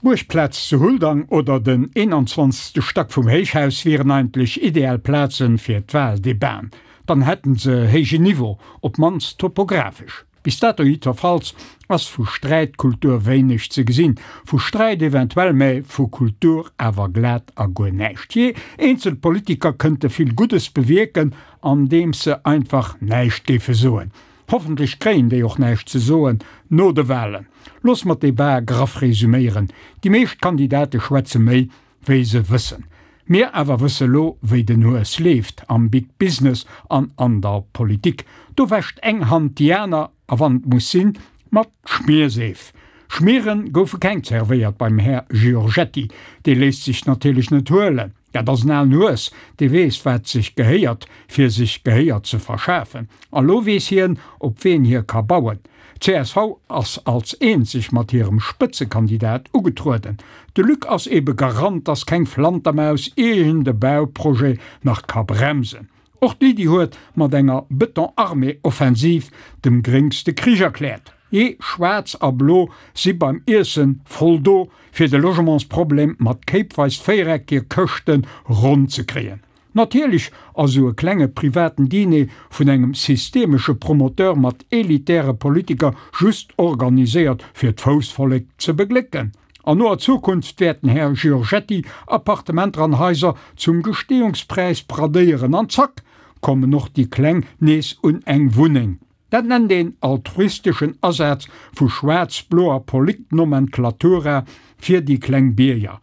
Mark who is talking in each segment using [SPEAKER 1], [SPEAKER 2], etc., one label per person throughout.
[SPEAKER 1] D'Buergplaz zu Huldang oder den 21. Stack vum Héichhaus wieren eigentlech ideal Plazen fir d'Wahldebaten. Dann hätten se héijen Niveau, op mannst topographesch. Bis dato jiddwerfalls ass vu Sträitkultur wéineg ze gesinn. Vu Sträit eventuell, mä vu Kultur awer glat a guer näischt. Jee, eenzel Politiker kënnte vill Guddes bewierken, andeems se einfach näischt géife soen. Hoffentlech kréien déi och näischt ze soen no de Wahlen. Looss mer d'Debat graff resuméieren, Déi meescht Kandidate schwätze méi, wéi se wëssen. Mir awer wësse lo, wéi den Hues leeft am Big Business an an der Politik. Do wäscht eng Hand déi aner, a wann et muss sinn, mat Schmierseef. Schmiere goufe keng zerwéiert beim Här Giorgetti. Dee léisst sech natierlech net huelen. Dat ass en alen Hues, dee weess, wat sech gehéiert, fir sech Gehéier ze verschafen. A lo weess hien, op ween hie ka bauen. Csv ass als eenzeg mat hirem Spëtzekandidat ugetrueden. De Luc ass ebe Garant, dass keng Flantermaus iergend e Bauprojet nach ka bremsen. Och d'Lydie huet mat enger Beton-Armée-Offensiv dem Gréngs de Krich erkläert. Jee, Schwaarz a Blo si beim Iessen voll do, fir de Logementsproblem mat kéipweis véiereckege Këschte ronn ze kréien. Natierlech ass esou e klenge privaten Diner vun engem systemesche Promoteur mat elitäre Politiker just organiséiert fir d'Foussvollek ze beglécken. An noer Zukunft wäert den Här Giorgetti Appartementer an Haiser zum Gestehungspräis bradéieren an zack kommen och déi Kleng nees un eng Wunneng. Dat nennt een altruisteschen Asaz vu schwaarz-bloer Politnomenklatura fir déi kleng Bierger.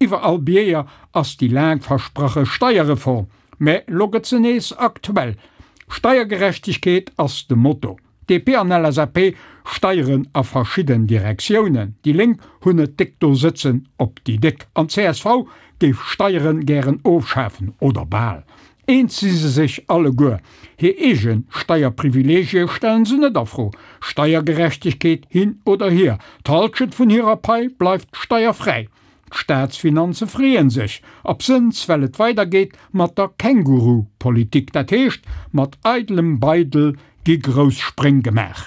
[SPEAKER 1] Iwwer all Bierger ass déi laang versprache Steierreform, mä lo gëtt se nees aktuell. Steiergerechtegkeet ass de Motto. DP an LSAP steieren a verschidden Direktiounen, déi Lénk hunn et déck do sëtzen op déi Déck an csv géif Steieren gären ofschafen, oder bal. Eens si se sech alleguer, hir eege Steierprivileegie stellen se net a Fro, Steiergerechtegkeet hin oder hier, d'Halschent vun hirer Pai bleift steierfräi. D'Staatsfinanze freeën sech, absënns well et weidergeet mat der Känguru-Politik, dat heescht mat eidelem Beidel gi grouss Spréng gemaach.